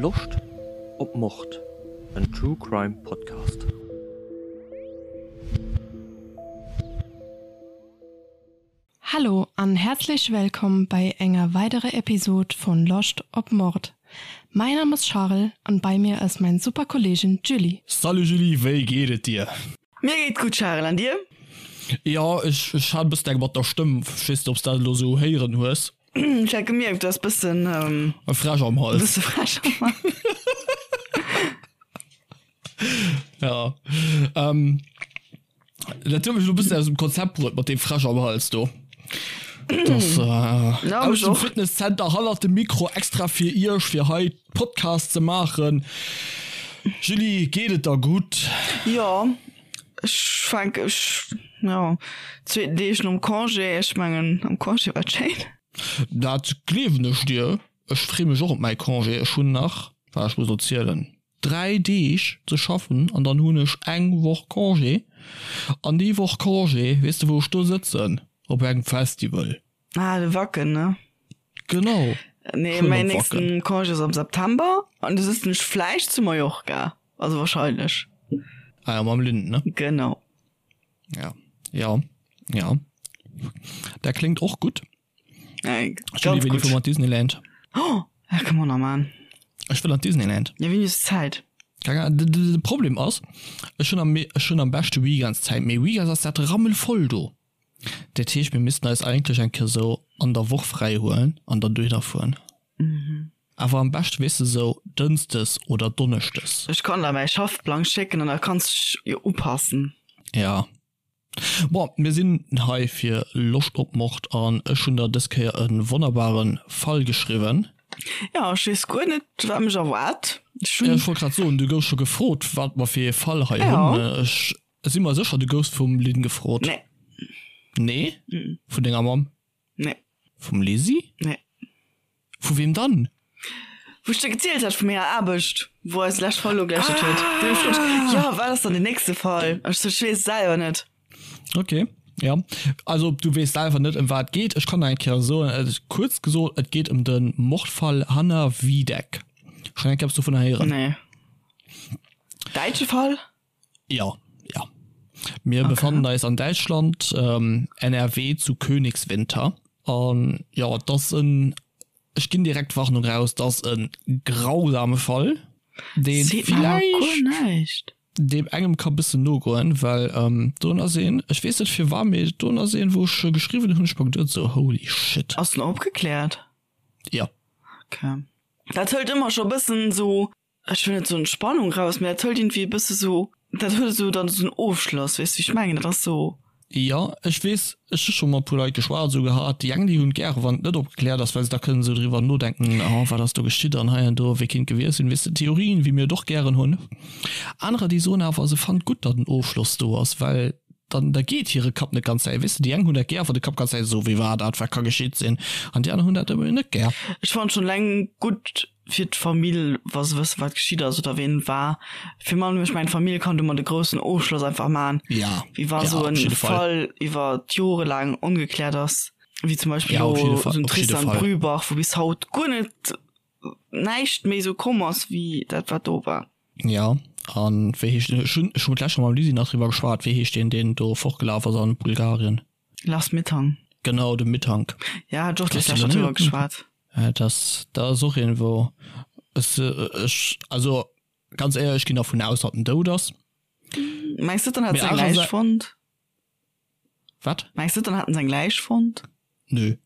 Loscht op Mord? En True Crime Podcast. Hallo an herzlich willkommen bei enger weitere Episode von Loscht op Mord. Mein Name ist Charel an bei mir ist mein super Kollegin Julie. Salut Julie, wéi geet et dir? Mir geet gutt Charel, an dir? Jo, ech ech hat e bëssen eng mat der Stëmm, ech weess net obs dat elo sou héieren hues. Ech hat gemierkt, du has bëssen E Fräsch am Hals. Bësse Fräsch am Hals. Ja, ähm, dat huet mech elo bëssen aus dem Konzept bruet mat deem Fräsch am Hals do. Das, äh, Ja, aus mech dem och. Fitnesscenter hannert dem Mikro extra fir iech, fir hei Podcast ze maachen. Julie, geet et der gutt? Jo, ech fänk, ech, jo, zweeten Deeg nom Congé, ech mengen am Congé war et schéin. Dat gleewen ech dir. Ech free mech och op mäi Congé. Ech hunn nach, waart ech muss elo zielen, 3 Deeg ze schaffen an dann hunn ech eng Woch Congé. An déi Woch Congé, weess de wou ech do sëtzen? Op engem Festival. Ah, de Wacken, ne? Genau. Nee, mäin nächsten Congé ass am September an du sëtzen ech vläicht zu Mallorca. Also wahrscheinlech. Ah ja, mam Lynn, ne? Genau. Ja, ja, ja. Dat kléngt och gutt. Ey, Julie, ganz wéini gutt. fuere mer an d'Disneyland? Oh, dat kënne mer nach man. Ech wëll an d'Disneyland. Ja, wéini hues du Zäit? Keng Ahnung, de, de, de Problem ass, ech hunn am, ech hunn am beschte Weekends Zäit, mee Weekends ass dat rammelvoll do. Dat heescht, mir missten eis eigentlech eng Kéier sou an der Woch fräi huelen an dann dohinner fueren. Awer am beschte, weess de, sou dënschdes oder donneschdes. Ech kann der mäi Schaffplang schécken an da kanns dech jo upassen. Ja. Bon, mir sinn hei fir Loscht op Mord an ech hunn der dës Kéier e wonnerbare Fall geschriwwen. Ja, ech weess guer net, wat mech erwaart. Ech hunn. Ech wollt grad soen, du goufs scho gefrot, wat mer fir ee Fall hei hunn. Ech si mer sécher, du goufs vum Lynn gefrot. Nee. Nee? Vun denger Mamm? Nee. Vum Lisi? Nee. Vu weem dann? Wou ech der gezielt hat vu menger Aarbecht, wou eis lescht Fall ugelächelt huet. Déi huet gefrot, Jo, wat ass dann den nächste Fall? Ech sou, ech weess et selwer net. Okay, ja. Also du weess selwer net, ëm wat et geet. Ech kann der eng Kéier soen, et ass kuerz gesot, et geet ëm de Mordfall Hanna Wiedeck. Schonn eng Kéier eppes dovunner héieren? Nee. Däitsche Fall? Ja, ja. Mir okay. befannen eis an Däitschland, ähm, NRW zu Königswinter. An ja, das en ech ginn direkt Warnung raus, das en grausame Fall, den vielleicht dem engem ka bëssen nogoen, well ähm, do ass een, ech weess net fir war, mee do ass een, wou ech geschriwwen hunn, ech mer geduet so holy shit. Ass den opgekläert? Ja. Okay. Dat hëlt ëmmer scho bëssen so ech wëll net soen Spannung raus, mee dat hëlt iergendwéi e bësse sou, dat huet esou dann esou en Ofschloss, weess du wéi ech mengen? Dat ass sou. Jo, ech weess, ech hu scho mat puer Leit geschwat esou gehat, déi eng déi hunn et gäre wann et net opgekläert ass, well se da kënnen esou driwwer nodenken, oh wat ass do geschitt an hei an do, wéi kinnt gewiescht sinn, weess de, Theorien wéi mir et och gären hunn. Anerer déi soen awer se fannen et gutt, datt en Ofschloss do ass, well dann da geet hire Kapp net ganz zäit, weess de, déi eng hunn dat gär wann de Kapp ganz zäit esou wéi war dat, wat ka geschitt sinn an déi aner hunn dat ebe net gär. Ech fannen schonn eleng gutt fir d'Famill, wa se wëssen, wat geschitt ass oder ween et war. Fir man, ech mengen, d'Famill kann domat e groussen Ofschloss einfach man, Ja, wéi wa ja, sou op en jidde Fall. Fall iwwer d'Jore laang ongekläert ass, wéi zum Beispill Ja, op elo jidde Fall, sou en op jidde Tristan Fall. Brübach, wou bis haut guer net näischt méi sou komm ass wéi dat, wat do war. Ja, an wéi heescht den, ech hunn, ech hu d'lescht Woch mam Lisi nach driwwer geschwat, wéi heescht deen, deen do fortgelaf ass an Bulgarien? Lars Mittank. Genau, de Mittank. Ja, hat ech och d'lescht Woch driwwer geschwat. Ja, das, dat ass och een, wou ech, ech, also ganz éierlech, ech ginn dervun aus, datt en dout ass. Mengs du, dann hätt se eng Läich fonnt? Wat? Mengs du, dann hätten se eng Läich fonnt? Nö.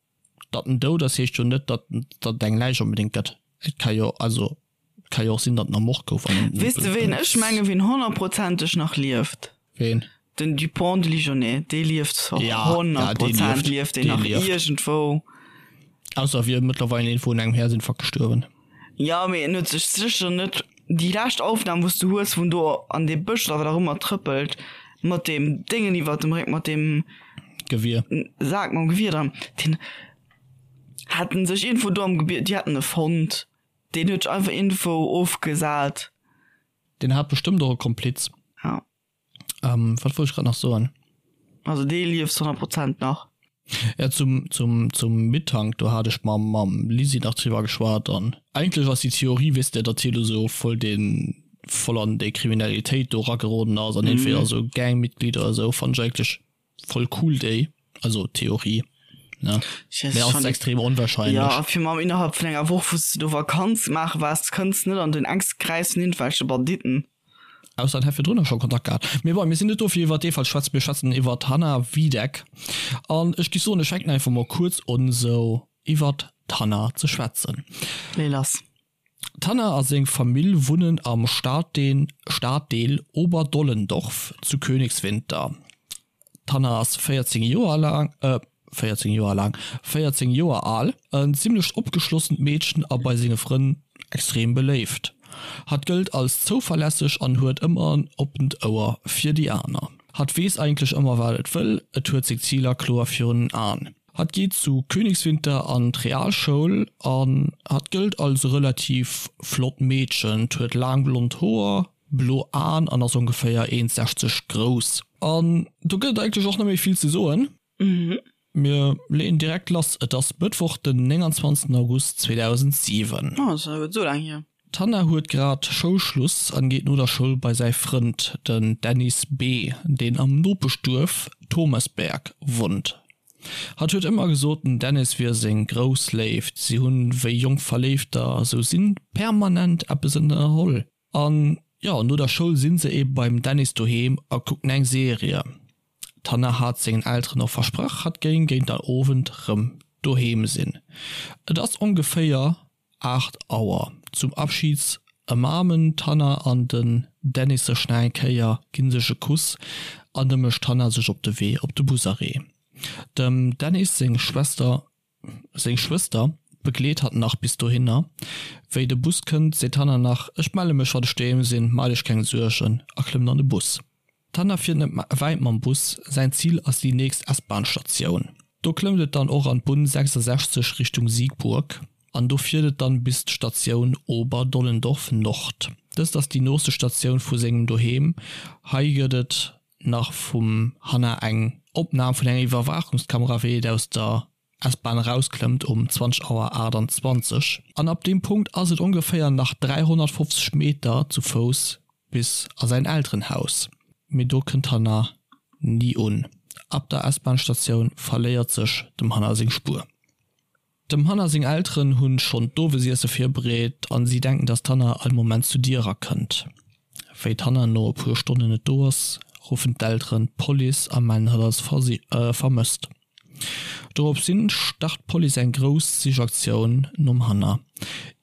Datt en dout ass, heescht jo net, datt, datt et eng Läich onbedéngt gëtt. Et ka jo, also, et ka jo och sinn, datt en ermort gouf an. Weess de ween ech mengen, ween honnertprozenteg nach lieft? Ween? Den Dupont de Ligonnès, dee lieft 100 Prozent lieft deen nach iergendwou. Ausser e wier mëttlerweil een vun engem Häerzinfarkt gestuerwen. Jo, mee en huet sech sécher net, déi lescht Aufnam wou s du hues, wou en do an dee Bësch oder wat och ëmmer trëppelt, mat deem Déngen iwwert dem Réck, mat deem Gewier. Sak mam Gewier dran, deen hat en sech iergendwou do am Gebier, déi haten e fonnt, deen huet sech einfach iergendwou ofgesat. Deen hat bestëmmt och e Kompliz. Ja. Ähm, wat wollt ech grad nach soen? Also dee lieft 100 Prozent nach. Ja, zum, zum, zum Mittank, do hat ech mam, mam Lisi nach driwwer geschwat an eigentlech ass déi Theorie, weess de, datt hie do sou voll den, voll an déi Kriminalitéit do erageroden ass an entweder sou Gangmitglied oder sou, fannt ech eigentlech voll cool déi, also Theorie, ne, Ech mee ass fand extrem onwahrscheinlech. Ja, fir mam innerhalb vun enger Woch, wou s de do Vakanz maache waars, kënns net an den enkste Kräis vun iergendwelche Banditten. Ausser en hätt virdrunner scho Kontakt gehat. Mee bon, mir sinn net do fir iwwert dee Fall ze schwätzen, mir schwätzen iwwert d'Hanna Wiedeck. An ech géif soen, ech fänken einfach mol kuerz un esou iwwert d'Hanna ze schwätzen. Lee lass. D'Hanna a seng Famill wunnen am Staddeel Oberdollendorf zu Königswinter. D'Hanna ass 14 Joer laang, 14 Joer laang, 14 Joer al, en zimmlecht opgeschlossent Meedchen a bei senge Frënn extrem beléift. Hatt gëllt als zouverlässeg an huet ëmmer en oppent Ouer fir déi aner. Hatt weess eigentlech ëmmer wat et wëll, et huet seng Ziler kloer virun den Aen. Hatt geet zu Königswinter an d'Realschoul an hatt gëllt als e relativ flott Meedchen. 't huet laang blond Hoer, blo Aen an ass ongeféier 1,60 grouss. An do gëtt et eigentlech och net méi vill ze soen. Mir leeën direkt lass. Et ass Mëttwoch den 29 August 2007. Oh, ass jo esou laang hier. D'Hanna huet grad Schoulschluss an geet no der Schoul bei säi Frënd, den Dennis B., deen am Nopeschduerf Thomesberg wunnt. Hatt huet ëmmer gesot, den Dennis wier seng grouss Léift, si hunn, wéi jonk Verléifter esou sinn, permanent eppes ënnerholl. An jo, no der Schoul sinn se ebe beim Dennis doheem a kucken eng Serie. D'Hanna hat sengen Elteren och versprach, hatt géing géint der Owend rëm doheem sinn. Et ass ongeféier 8 Auer. Zum Abschied ëmaarmen d'Hanna an den Dennis sech nach eng Kéier, ginn sech e Kuss an da mécht d'Hanna sech op de Wee op de Busarrêt. Dem Dennis seng Schwester Seng Schwëster begleet hatt nach bis dohinner. Wéi de Bus kënnt, seet d'Hanna nach, Ech melle mech, wann ech doheem sinn, maacht iech keng Suergen, a klëmmt an de Bus. D'Hanna fiert net wäit mam Bus, säin Zil ass déi nächst S-Bahn-Statioun. Do klëmmt et dann och an d'Bunn 66 Richtung Siegburg an do fiert et dann bis d'Statioun Oberdollendorf Nord. Dëst ass déi nooste Statioun vu sengem Doheem. Hei gëtt et nach vum Hanna eng Opnam vun enger Iwwerwaachungskamera wéi et aus der S-Bahn erausklëmmt um 20 Auer 28. An ab deem Punkt ass et ongeféier nach 350 Meter zu Fouss bis a säin Elterenhaus. Mee do kënnt d'Hanna ni un. Ab der S-Bahn-Statioun verléiert sech dem Hanna seng Spuer. Dem Hanna seng Elteren hunn schonn d'Owesiesse virbereet an si denken dass d'Hanna all Moment zu Dier erakënnt. Wéi d'Hanna no e puer Stonnen net do ass, ruffen d'Elteren d'Police a mellen hatt als vermësst. Dorops hin start d'Police eng grouss Sichaktioun nom Hanna.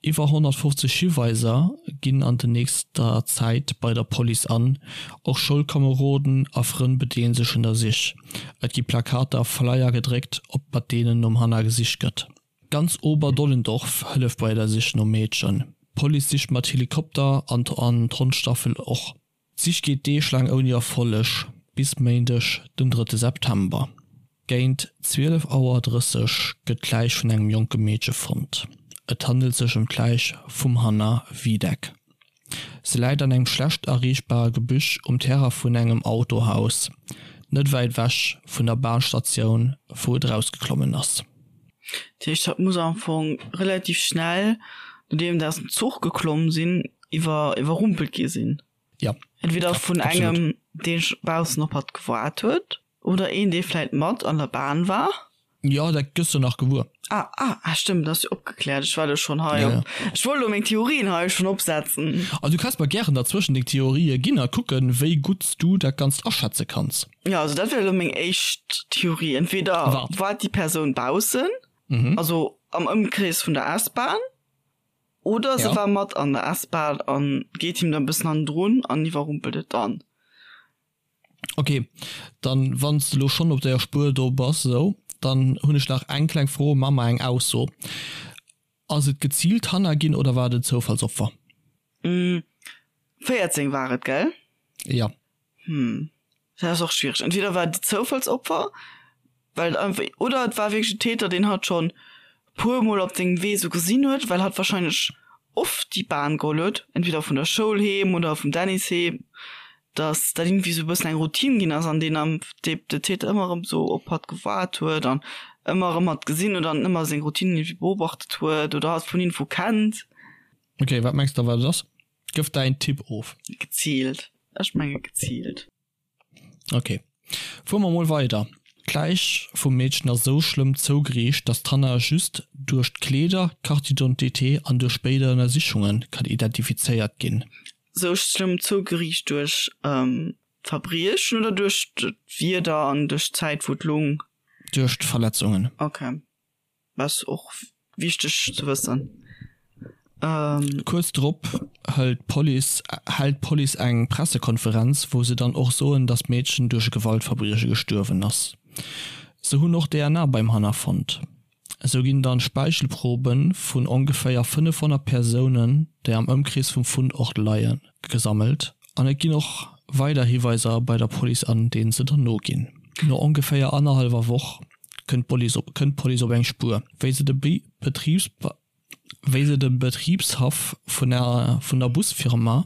Iwwer 150 Hiweiser ginn an de nächster Zäit bei der Police an, och Schoulkomeroden a Frënn bedeelen sech un der Sich. Et gi Plakater a Flyer gedréckt, op mat deenen nom Hanna gesicht gëtt. Ganz Oberdollendorf hëlleft bei der Sich nom Meedchen. D'Police sicht mat Helikopter an d'Hondstaffel och. D'Sich geet Deeg laang ouni Erfolleg, bis Méindeg den drëtte September. Géint 12 Auer 30 gëtt d'Läich vun engem jonke Meedche fonnt. Et handelt sech ëm d'Läich vum Hanna Wiedeck. Se läit an engem schlecht erreechbare Gebüsch um Terrain vun engem Autohaus, net wäit ewech vun der Bahnstatioun, wou et erausgeklommen ass. Dat heescht, hatt muss am Fong relativ schnell, nodeem se aus dem Zuch geklomm sinn, iwwer iwwerrumpelt gi sinn. Ja. Entweder vun engem, dee baussen op hatt gewaart huet, oder een, dee vläit mat an der Bahn war. Jo, dat gëss de nach gewuer. Ah, ah, ah, stëmmt, dat ass jo opgekläert. Ech war do schonn hei op. Ech wollt elo meng Theorien hei schonn opsetzen. Also du kanns mer gären derzwëschen deng Theorië ginn a kucken, wéi gutt s du dat Ganzt aschätze kanns. Jo, also dat wär elo meng éischt Theorie. Entweder Wat? war déi Persoun baussen, also am Ëmkrees vun der S-Bahn, oder se Ja. war mat an der S-Bahn a geet him da e bëssen hannendrun an iwwerrumpelt et dann. Ok, dann wann s de lo schonn op der Spuer do bass esou, dann hunn ech nach eng kleng Fro, ma mer eng Ausso. Ass et geziilt Hanna ginn oder war et en Zoufallsopfer? 14 war et, gell? Jo. Hm, dat ass och schwiereg. Entweder war et e Zoufallsopfer, well et einfach, oder et war wierklech en Täter, deen hatt schonn puer mol op sengem Wee sou gesinn huet, well hatt wahrscheinlech oft déi Bahn geholl huet, entweder vun der Schoul heem oder vum Dennis heem. Dass dat irgendwie sou e bëssen eng Routine ginn ass an deen am de de Täter ëmmer erëm sou op hatt gewaart huet an ëmmer erëm hatt gesinn huet an ëmmer seng Routine irgendwie beobachtet huet oder hatt vun irgendwou kennt. Ok, wat mengs de wat et ass? Gëff däin Tipp of. Geziilt. Ech menge geziilt. Ok, fuere mer mol weider. D'Läich vum Meedchen ass esou schlëmm zougeriicht, datt d'Hannah just duerch d'Kleeder, d'Carte d'identité an duerch spéider Ënnersichunge kann identifizéiert ginn. Sou schlëmm zougeriicht duerch d'Verbriechen oder duerch d'Wieder an duerch d'Zäit wou et lung? Duerch d'Verletzungen. Ok, ass och wichteg ze wëssen. Kuerz drop hëlt d'Police hält d'Police eng Pressekonferenz, wou se dann och soen, datt d'Meedchen duerch e Gewaltverbrieche gestuerwen ass. Se hunn och DNA beim Hannah fonnt. Esou ginn dann Speichelprobe vun ongeféier 500 Persounen, déi am Ëmkrees vum Fundort leien, gesammelt an et ginn och weider Hiweiser bei der Police an, deenen se dann noginn. No ongeféier annerhallwer Woch kënnt d'Police op eng Spuer, wéi se de Wéi se de Betribshaff vun der Busfirma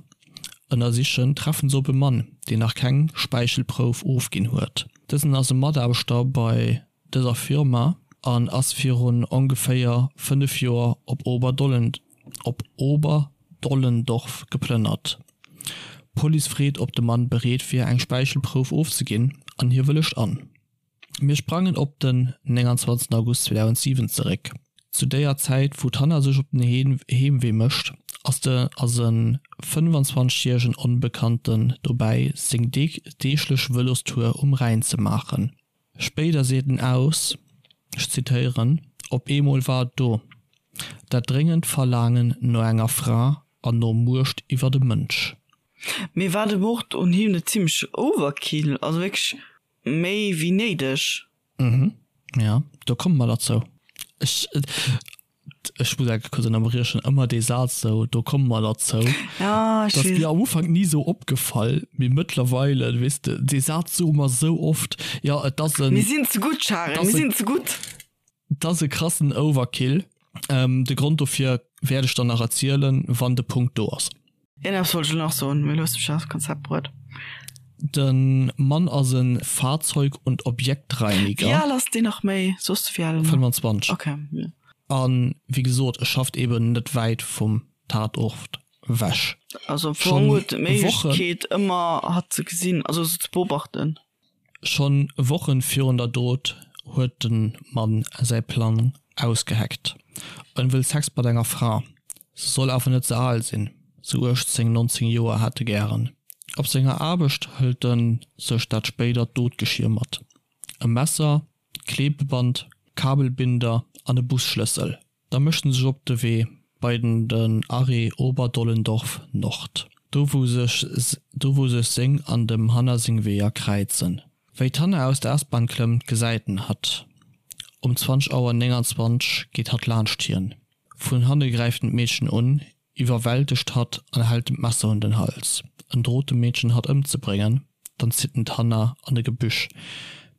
ënnersichen, treffen se op e Mann, deen nach keng Späichelprouf ofginn huet. Dësen ass e Mataarbechter bei dëser Firma an ass virun ongeféier 5 Joer op Oberdollendorf geplënnert. D'Police freet, ob de Mann bereet wier, eng Späichelprouf ofzeginn an hie wëllegt an. Mir sprangen op den 29 August 2007 zeréck. Zu déier Zäit, wou d'Hanna sech op den Heemwee mécht, ass de ass e 25 järegen Onbekannten dobäi, seng deeglech Vëlostour um Rhäin ze maachen. Spéider seet en aus, ech zitéieren, Op eemol war et do, dat dréngend Verlaangen no enger Fra an no Muecht iwwer e Mënsch. Mee war de Mord un him net zimmlech Overkill? Also wierklech Méi wéi néideg. Mhm, ja, do komme mer derzou. Ech, ech muss enke kuerz ënnerbriechen, ëmmer dee Saz sou, do komme mer derzou. Ja, ech Dat ass weess. mir am Ufank ni sou opgefall, mee mëttlerweile, weess de, dee Saz soe mer sou oft. Jo, et ass en. Mir sinn ze gutt, Charel, mir sinn ze gutt. Et ass e krassen Overkill. De Grond dofir wäert ech dann nach erzielen, wann de Punkt do ass. Iergendepps wollt ech elo nach soen, mee elo hues de mech aus dem Konzept bruet. De Mann ass e Fahrzeug und Objektreiniger. Wéi al ass deen nach méi? Soss de wéi al en ass? 25. Ok, jo. A wéi gesot, e schafft eben net wäit vum Tatort wech. Also am Fong huet en d'Méiglechkeet ëmmer hatt ze gesinn, also se ze beobachten. Schonn Wochen virun der Dot huet de Mann säi Plang ausgeheckt. En wëll Sex mat enger Fra, se soll awer net ze al sinn, sou 18, 19 Joer hätt e gären. Op senger Aarbecht hëlt en sech dat spéidert Dotgeschier mat, e Messer, Klebeband, Kabelbinder an e Busschlëssel. Da mécht en sech op de Wee bei den den Arrêt Oberdollendorf Nord, do wou sech do wou sech seng an dem Hanna seng Weeër kräizen. Wéi d'Hanna aus der S-Bahn klëmmt, gesäit en hatt. Um 20 Auer 29 geet hatt laanscht hien. Vun hanne gräift en d'Meedchen un, iwwerwältegt hatt an hält em d'Messer un den Hals. En drot dem Meedchen hatt ëmzebréngen, dann zitt en d'Hanna an e Gebüsch,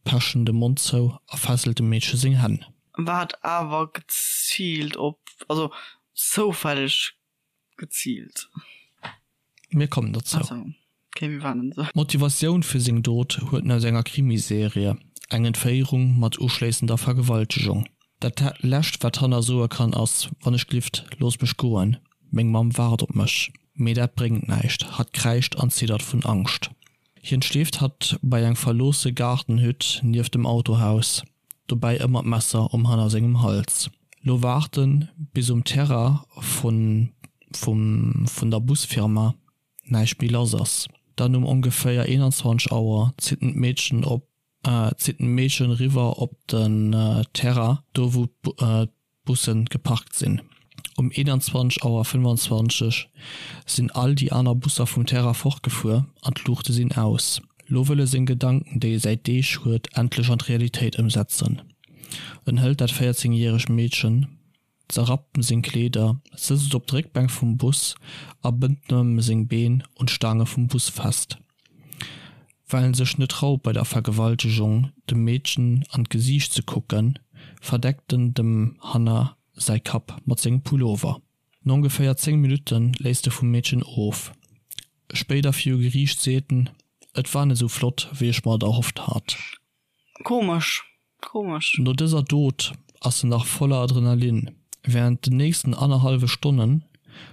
pecht em de Mond zou a fesselt dem Meedche seng Hänn. War awer geziilt op, also zoufälleg geziilt. Mir kommen dozou. Ach sou, okay, mir waarden se. D'Motivatioun fir seng Dot huet en aus enger Krimiserie, eng Entféierung mat uschléissender Vergewaltegung. Dat lescht wat Hannah soe kann ass, Wann ech glift, looss mech goen, meng Mamm waart op mech. Mee dat bréngt näischt, hatt kräischt an ziddert vun Angscht. Hien schleeft hatt bei eng verloosse Gaardenhütt nieft dem Autohaus, dobäi ëmmer d'Messer um Hannah sengem Hals. Lo waart en, bis um Terrain vun vum vun der Busfirma näischt méi lass ass. Dann um ongeféier 21 Auer zitt en d'Meedchen op zitt en d'Meedchen eriwwer op den Terrain, do wou d'Bussen geparkt sinn. Um 21 Auer 25 sinn all déi aner Busser vum Terrain fortgefuer an d'Luuchte sinn aus. Lo wëll e seng Gedanken, déi e säit Deeg huet, endlech an d'Realitéit ëmsetzen. En hëlt dat 14 järegt Meedchen, zerrappt em seng Kleeder, sëtzt et op d'Réckbänk vum Bus a bënnt em seng Been un d'Staange vum Bus fest. Well en sech net traut bei der Vergewaltegung dem Meedchen an d'Gesiicht ze kucken, verdeckt en dem Hannah säi Kapp mat sengem Pullover. No ongeféier 10 Minutte léisst e vum Meedchen of. Spéider viru Geriicht seet en, Et war net esou flott, wéi ech mer et erhofft hat. Komesch, komesch. No dëser Dot ass en nach voller Adrenalin. Wärend den nächsten annerhallwe Stonne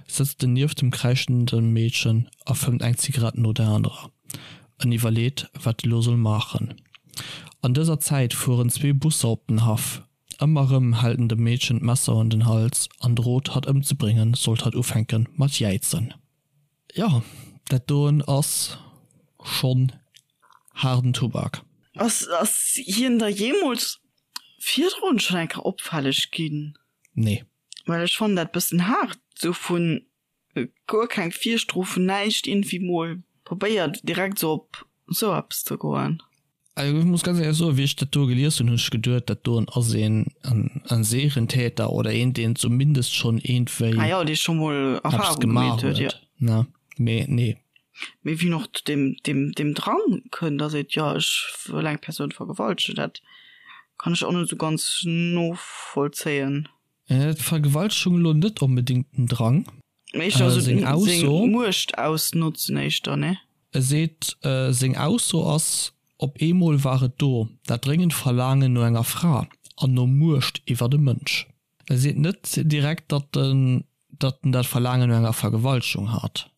sëtzt en nieft dem kräischende Meedchen a fëmmt eng Zigarett no der anerer. En iwwerleet, wat e lo soll maachen. An dëser Zäit fueren zwee Busser op den Haff. Ëmmer rëm hält en dem Meedchen d'Messer un den Hals an drot hatt ëmzebréngen, sollt hatt ufänke mat jäizen. Jo, dat doen ass schonn haarden Tubak. Ass ass hien da jeemools virdrun schonn eng Kéier opfälleg ginn? Nee. Well ech fannen dat bëssen haart, sou vun guer keng Virstrofen, näischt, iergendwéi mol probéiert direkt sou op sou eppes ze goen. Also ech muss ganz éierlech soen, wéi ech dat do gelies hunn, hunn ech geduet, dat doen ass een en Serientäter oder een, deen zumindest schonn iergendwéi Ah jo, dee scho mol eppes Erfahrung gemaach gemeet huet, jo. huet, ne? Mee nee. Mee wien och zu deem, deem, deem Drang kënnt a seet, jo ech wëll eng Persoun vergewaltegen, dat kann ech och net esou ganz novollzéien. D'Vergewaltegung elo net onbedéngt den Drang. Mee éischter esou seng Ausso, Muecht ausnotzen éischter, ne? E seet, seng Ausso ass, Op eemol war et do, dat dréngend Verlaangen no enger Fra an no Muecht iwwer e Mënsch. E seet net direkt, datt en dat Verlaangen no enger Vergewaltegung hat.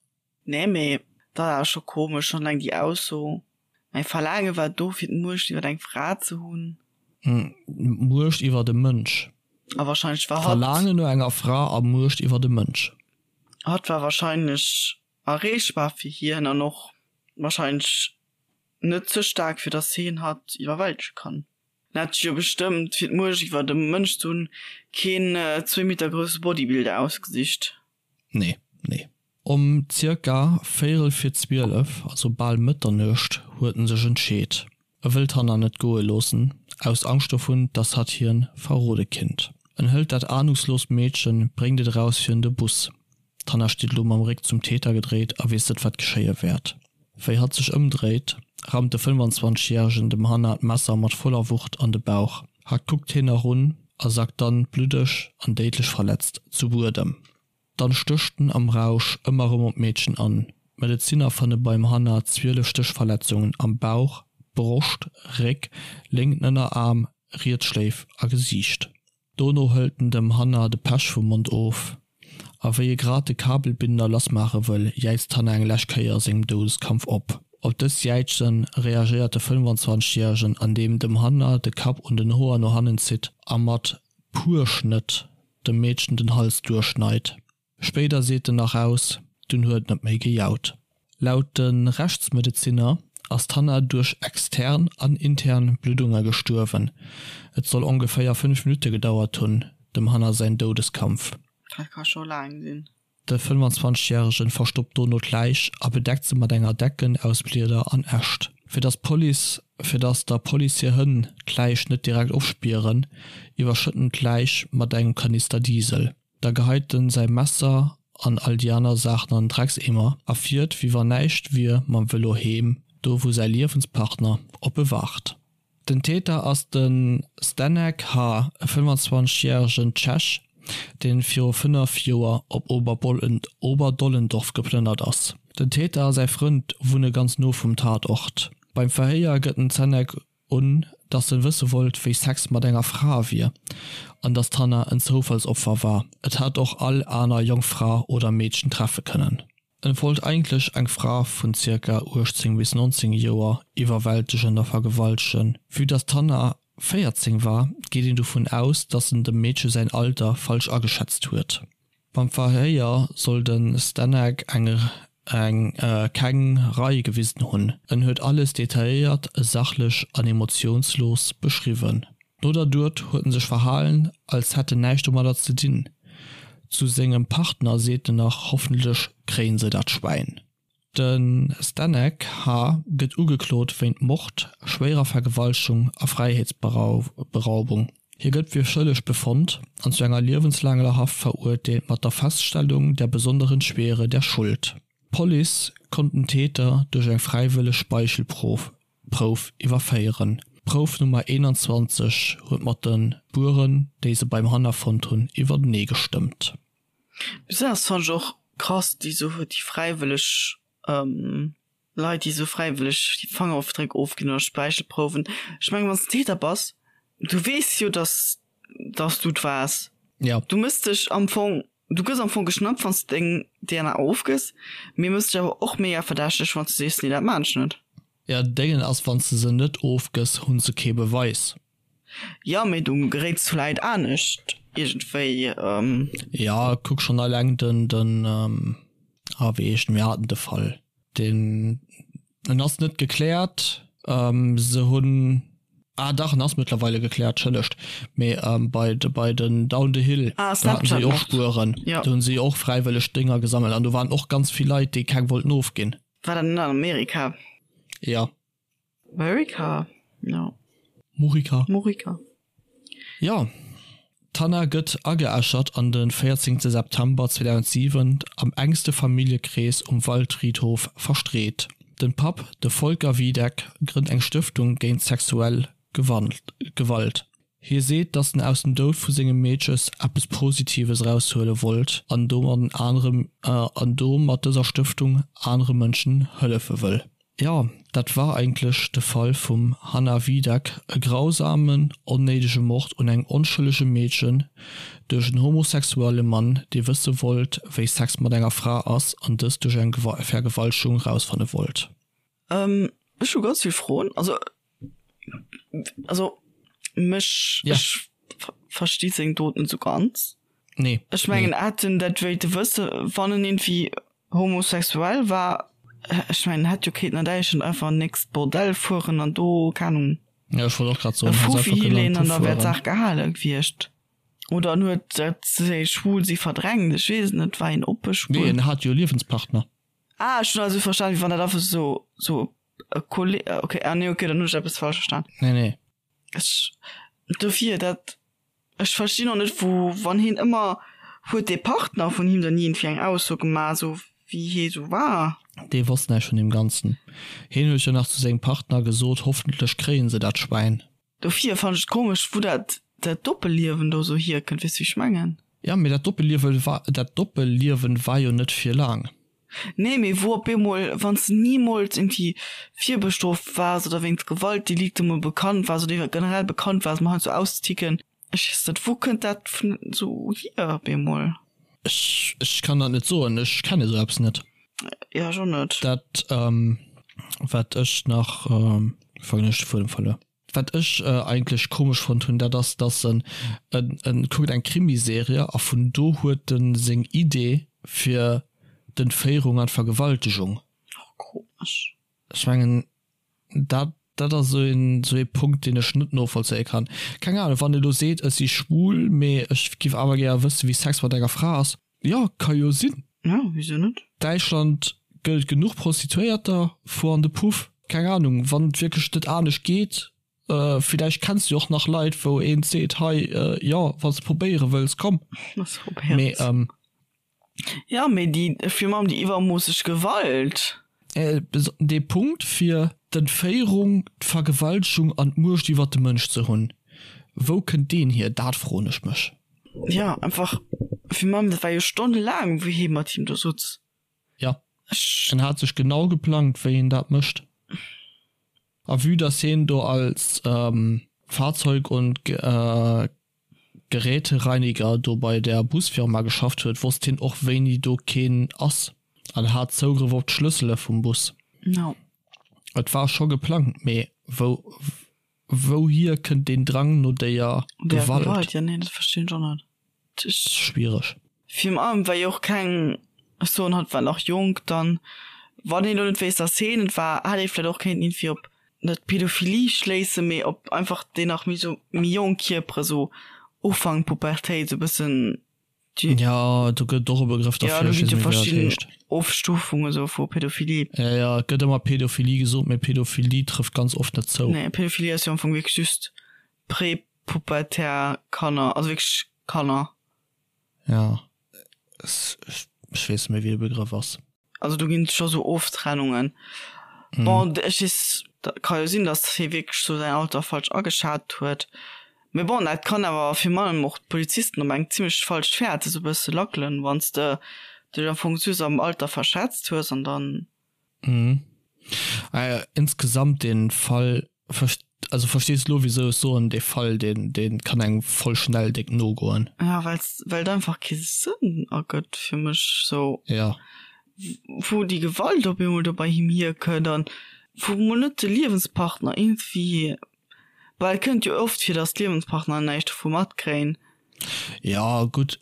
Nee, mee dat ass scho komesch, schonn eleng déi Ausso, mäi Verlaange war do fir d'Muecht iwwer eng Fra ze hunn. D'Muecht iwwer e Mënsch. A wahrscheinlech war hatt. Verlaangen no enger Fra a Muecht iwwer e Mënsch. Hatt war wahrscheinlech erreechbar fir hien an och wahrscheinlech net ze staark fir dass hien hatt iwwerwältege kann. En hat sech jo bestëmmt fir d'Muecht iwwer e Mënsch ze hunn keen zwéi Meter grousse Bodybuilder ausgesicht. Nee, nee. Om zirka véierel vir 12, also bal Mëtternuecht, huet en sech entscheet, e wëll d'Hanna net goe loossen, aus Angscht dovun, dass hatt hien verrode kinnt. En hëlt dat ahnungsloost Meedchen, bréngt et eraus virun de Bus. D'Hanna steet elo mam Réck zum Täter gedréit a weess net, wat geschéie wäert. Wéi hatt sech ëmdréit, rammt de 25 Järegen dem Hanna d'Messer mat voller Wucht an de Bauch. Hatt kuckt hien nach un a sackt dann, bluddeg an déidlech verletzt, zu Buedem. Dann stécht en am Rausch ëmmer erëm op d'Meedchen an. D'Medezinner fanne beim Hanna 12 Stéchverletzungen am Bauch, Broscht, Réck, lénken Ënneraarm, riets Schléif a Gesiicht. Dono hëlt en dem Hanna de Pech vum Mond of a wéi e grad de Kabelbinder lassmaache wëll, jäizt d'Hanna eng lescht Kéier sengem Doudeskampf op. Op dës Jäize reagéiert de 25 Järegen andeem dem Hanna de Kapp un den Hoer no hannen zitt a mat puer Schnëtt dem Meedchen den Hals duerchschneit. Spéider seet en nach aus, dunn huet et net méi gejaut. Laut de Rechtsmedezinner ass d'Hanna duerch extern an intern Bluddunge gestuerwen. Et soll ongeféier 5 Minutte gedauert hunn, dem Hanna säin Doudeskampf. Dat ka scho laang sinn. De 25 Järegen verstoppt dono d'Läich a bedeckt se mat enger Decken aus Blieder an Äscht. Fir dass d'Police fir dass der Police hir Hënn d'Läich net direkt ofspieren, iwwerschëtt en d'Läich mat engem Kanister Diesel. Da geheit en säi Messer an all déi aner Saachen an den Dreckseemer a fiert wéi wann näischt wier mam Vëlo heem, do wou säi Liewenspartner op e waart. Den Täter ass de Zdenek H., e 25 järegen Tschech, deen viru 5 Joer op Oberdollendorf geplënnert ass. Den Täter a säi Frënd wunne ganz no vum Tatort. Beim Verhéier gëtt den Zdenek un, dass en wësse wollt, wéi Sex mat enger Fra wier an dass d'Hannah en Zoufallsopfer war, et hätt och all aner jonk Fra oder Meedchen treffe kënnen. En wollt eigentlech eng Fra vun zirka 18 bis 19 Joer iwwerwältegen a vergewaltegen. Vue dass d'Hannah 14 war, geet een dovun aus, dass en dem Meedche säin Alter falsch ageschätzt huet. Beim Verhéier soll de Stanek eng eng keng Rei gewisen hunn. En huet alles detailléiert, sachlech an emotiounslos beschriwwen. No der Dot huet en sech verhalen, als hätt en näischt domadder ze dinn. Zu sengem Partner seet en nach, Hoffentlech kréien se dat Schwäin. De Stanek H. Gëtt ugeklot wéint Mord, schwéierer Vergewaltegung a Fräiheetsberaubung. Hie gëtt fir schëlleg befonnt an zu enger liewenslaanger Haft verurteelt mat der Feststellung der besonderen Schwere der Schuld. D'Police konnt den Täter duerch eng fräiwëlleg Speichelprouf iwwerféieren. D'Prouf Nummer 21 huet mat de Spueren, déi se beim Hanna fonnt hunn, iwwertenee gestëmmt. Besonnesch fannen ech och krass déi sou déi fräiwëlleg. Leit, déi esou fräiwëlleg déi Fangerofdréck ofginn oder Speichelprouwen. Ech mengen, wann s de Täter bass, du weess jo, dass, dass du et waars. Ja. Du mëss dech am Fong, du gëss am Fong geschnappt, wann s de deng DNA ofgëss, mee mëss dech awer och mega verdächteg, wann s de sees, nee, dat maan ech net. Ja, Déngen ass, wann s de se net ofgëss, hunn se kee Beweis. Jo, mee du geréits vläit anescht iergendwéi. Ja, kuck schonn alleng den, den, ah wéi heescht en, mir haten de Fall, deen, en ass net gekläert, se hunn, ah dach, en ass mëttlerweile gekläert, entschëllegt, mee bei, bei den Down the Hill, Ah, do haten se jo och Snapchat-Mord, Spueren, jo. do hunn se jo och fräiwëlleg Dénger gesammelt an do waren och ganz vill Leit, déi keng wollten ofginn. War dat net an Amerika? Jo. Amerika, jo. Murica. Murica. Jo, d'Hanna gëtt ageäschert an de 14 September 2007 am engste Familljekrees um Waldfriedhof verstreet. Den Papp, de Volker Wiedeck, grënnt eng Stëftung géint sexuell Gewalt. Hie seet, datt en aus dem Doud vu sengem Meedches eppes Positives eraushuele wollt an domat an do mat dëser Stëftung anere Mënschen hëllefe wëll. Jo, dat war eigentlech de Fall vum Hannah Wiedeck, e grausamen, onnéidege Mord un engem onschëllege Meedchen duerch en homosexuelle Mann, dee wësse wollt, wéi Sex mat enger Fra ass an dëst duerch eng Vergewaltegung rausfanne wollt. Ech hu ganz vill Froen. Also, also mech, ech versti seng Dot net sou ganz. Nee. Ech mengen, hätt en dat wéilte wësse, wann en iergendwéi Homosexuell war, ech mengen hätt jo kéinten an Däitschland einfach an nächst Bordell fueren an do, keng Ahnung, Ja, ech wollt och grad e soen, hätt Fuffi einfach kënnen an hileen den an Puff da wär fueren. d'Saach gehale gewiescht. Oder en huet dat säi Schwulsi verdrängt, ech weess et net, war een oppe Nee, schwul? en hat jo e Liewenspartner. Ah, ech hunn also verstan, wéi wann dat einfach sou sou e Kolleg, okay, ah nee, okay, dann hunn ech eppes falsch verstan. Nee, nee. Ech, dofir, dat, ech verstinn och net wou, wann hien ëmmer, huet dee Partner vun him dann iergendwéi eng Ausso gemaach, esou wéi hie sou war? Dee wosst näischt vun deem Ganzen. Hien huet jo nach zu sengem Partner gesot, hoffentlech kréien se dat Schwäin. Dofir fannen ech et komesch, wou dat, dat Doppelliewen do sou hierkënnt, weess du wéi ech mengen? Jo, mee dat Doppelliewe war, dat Doppelliewen war jo net fir laang. Nee, mee wou op eemol, wann s de nimools irgendwie virbestrooft waars oder wéinst Gewaltdelikte mol bekannt waars oder generell bekannt waars, mol heiansdo auszeticken, ech weess net, wou kënnt dat vun esou hier op eemol? Ech, ech kann dat net soen, ech kenne esou eppes net. Jo, ech och net. Dat, wat ech nach, fannen ech de Fuedem verluer. Wat ech eigentlech komesch fonnt hunn, dat ass, dass en en kuckt eng Krimiserie a vun do huet en seng Idee fir d'Entféierung an d'Vergewaltegung. Och komesch. Ech mengen, dat dat ass esou een esou ee Punkt, deen ech net novollzéie kann. Keng Ahnung, wann e lo seet, ech si schwul, mee ech giff awer gäre wësse wéi Sex mat enger Fra ass, jo, ka jo sinn. Jo, wisou net? Däitschland gëtt et genuch Prostituéierter, fuer an de Puff. Keng Ahnung, wann et wierklech net anescht geet, villäicht kenns du jo och nach Leit wou een seet, hei jo wann s de probéiere wëlls, komm. Mee Jo, mee déi, virun allem déi iwwermoosseg Gewalt. Dee Punkt fir d'Entféierung, d'Vergewaltegung an d'Muecht iwwert de Mënsch ze hunn, wou kënnt deen hier? Dat froen ech mech. Jo, einfach virun allem, dat war jo stonnelaang wou hie mat him do sutz. Jo, en hat sech genau geplangt wéi en dat mécht. A vue dass hien do als Fahrzeug und Gerätereiniger do bei der Busfirma geschafft huet, wosst hien och wéini do keen ass an hat Zougrëff op d'Schlëssele vum Bus. Et war scho geplangt, mee wou wouhier kënnt deen Drang no déier Gewalt? Jo, nee, dat verstinn ech och net. Schwiereg. Virun allem well jo och keng, ech soen hatt war nach jonk, dann wann een elo net wéisst dass heen et war, hätt ee vläit och kéinten iergendwéi op net Pädophilie schléissen, mee op einfach déi nach méi sou méi jonk Kierpere sou Ufank Pubertéit sou bëssen déi. Jo, do gëtt et och e Begrëff derfir, ech weess net méi wéi dat heescht. Ofstufunge sou vu Pädophilie. Jo, jo, et gëtt ëmmer Pädophilie gesot, mee Pädophilie trëfft ganz oft net zou. Nee, Pädophilie ass jo am Fong wierklech just prepubertär Kanner, also wierklech Kanner. Ja, ech weess net méi wéi de Begrëff ass. Also do ginn et scho sou Oftrennungen. Bon, ech weess, ka jo sinn, datt hie wierklech sou säin Alter falsch ageschat huet. Mee bon, dat kann awer virun allem och d'Polizisten op eng zimmlech falscht Fäert esou e bësse lackelen, wann s de dech am Fong just am Alter verschätzt hues an dann. Mhm. Ah ja, insgesamt den Fall, also verstees de lo wisou ech soen, dee Fall deen deen kann engem voll schnell déck nogoen. Ja, wells well et einfach kee Sënn ergëtt fir mech sou. Ja. Wou déi Gewalt op eemol do bei him hierkënnt an wou mol net de Liewenspartner iergendwéi, well et kënnt jo oft vir, datt d'Liewenspartner näischt dovu matkréien. Ja gutt,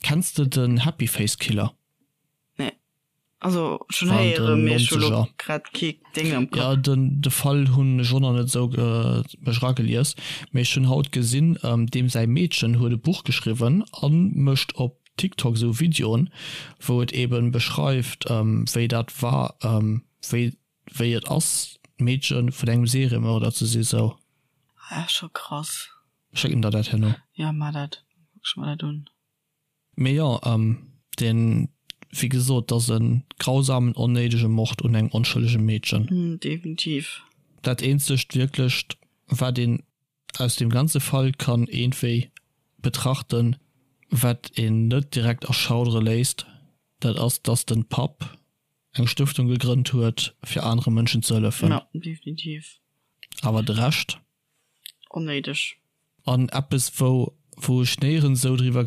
kenns de den Happy Face Killer? Nee. Also schon héiere mee ech hu lo grad kee Ding am Kapp. Ja den de Fall hunn ech och nach net esou mech eragelies, mee ech hunn haut gesinn deem säi Meedchen huet e Buch geschriwwen an mécht op TikTok esou Videoen wou et eben beschreift wéi dat war wéi wéi et ass d'Meedche vun engem Seriemörder ze si sou. Ah scho krass. Schécken der dat herno. Jo mar dat, kuck ech mer dat un. Mee jo, deen, wéi gesot, 't ass e grausamen, onnéidege Mord un engem onschëllege Meedchen. Definitiv. Dat eenzegt wierklecht, wat een aus deem ganze Fall kann iergendwéi betrachten, wat een net direkt erschaudere léisst, dat ass, dass den Papp eng Stëftung gegrënnt huet, fir anere Mënschen ze hëllefen. Jo, definitiv. Awer de Rescht? Onnéideg. An eppes wou wou ech néierens esou driwwer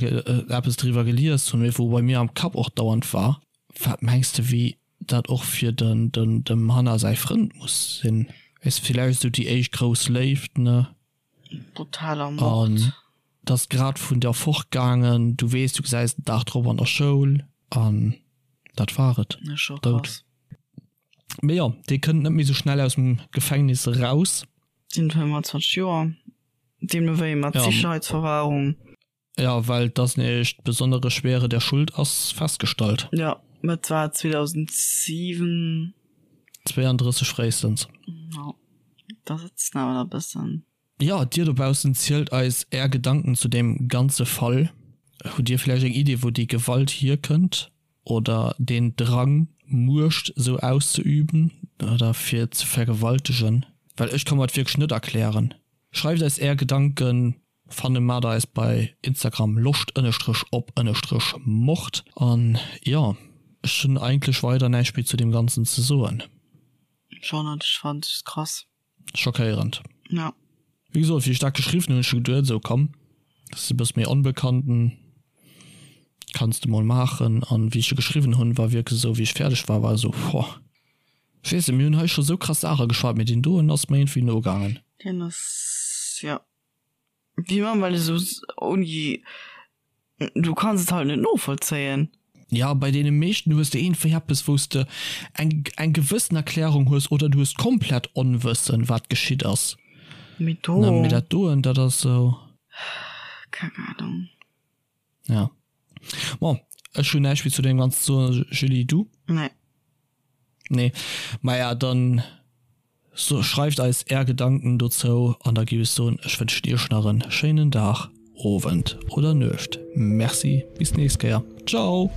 eppes driwwer gelies hunn, mee wou bei mir am Kapp och dauernd war, wat mengs de wéi dat och fir den den dem Hannah säi Frënd muss sinn? Weess villäicht esou déi éischt grouss Léift, ne? Brutaler Mord. An d'ass grad vun der fortgaangen, du weess du gesäis den Dag drop an der Schoul an dat war et, Doud. Mee jo, dee kënnt net méi sou schnell aus dem Gefängnis eraus. Sinn 25 Joer, deemno wéi mat Sicherheitsverwahrung. Jo, well dass nämlech d'besonnere Schwere der Schuld ass festgestallt. Jo, et war 2007. 32 fréistens. Jo, da sëtzt en awer nach e bëssen. Jo, dir dobaussen zielt eis är Gedanken zu deem ganze Fall. Hutt dir vläicht eng Idee wou déi Gewalt hierkënnt oder deen Drang Muecht sou auszeüben oder fir ze vergewaltegen? Well ech ka mer et wierklech net erklären. Schreift eis är Gedanken, fanne mat eis bei Instagram loscht ënnestrech op ënnestrech mord. An jo, ech hunn eigentlech weider näischt méi zu deem ganzen ze soen. Schon, an ech fannen et krass. Schockéierend. Ja. Wéi gesot, wéi ech dat geschriwwen hunn, hunn ech scho geduet, esou komm, dat ass e bësse méi onbekannten, kanns de mol maachen. An wéi ech e geschriwwen hunn, war wierklech esou, wéi ech fäerdeg war, war esou, Woah. Ech weess net, mir hunn hei scho esou krass Saache geschwat, mee deen doen ass mer iergendwéi nogaangen. Deen ass, jo. Wéi man, well esou ouni, du kanns et halt net novollzéien. Ja, bei deene meeschten hues de iergendwéi eppes, wou s de eng eng gewëssen Erklärung hues oder du hues komplett Onwëssen, wat geschitt ass. Mee do. Ne, mee dat doen, dat ass esou. Keng Ahnung. Ja. Bon, ech hunn näischt méi zu deem Ganzen ze soen. Julie, du? Nee. Nee. Maja, dann so, schreift eis är Gedanken dozou an da giff ech soen, ech wënschen iech nach en schéinen Dag, Owend oder Nuecht. Merci, bis d'nächst Kéier. Ciao!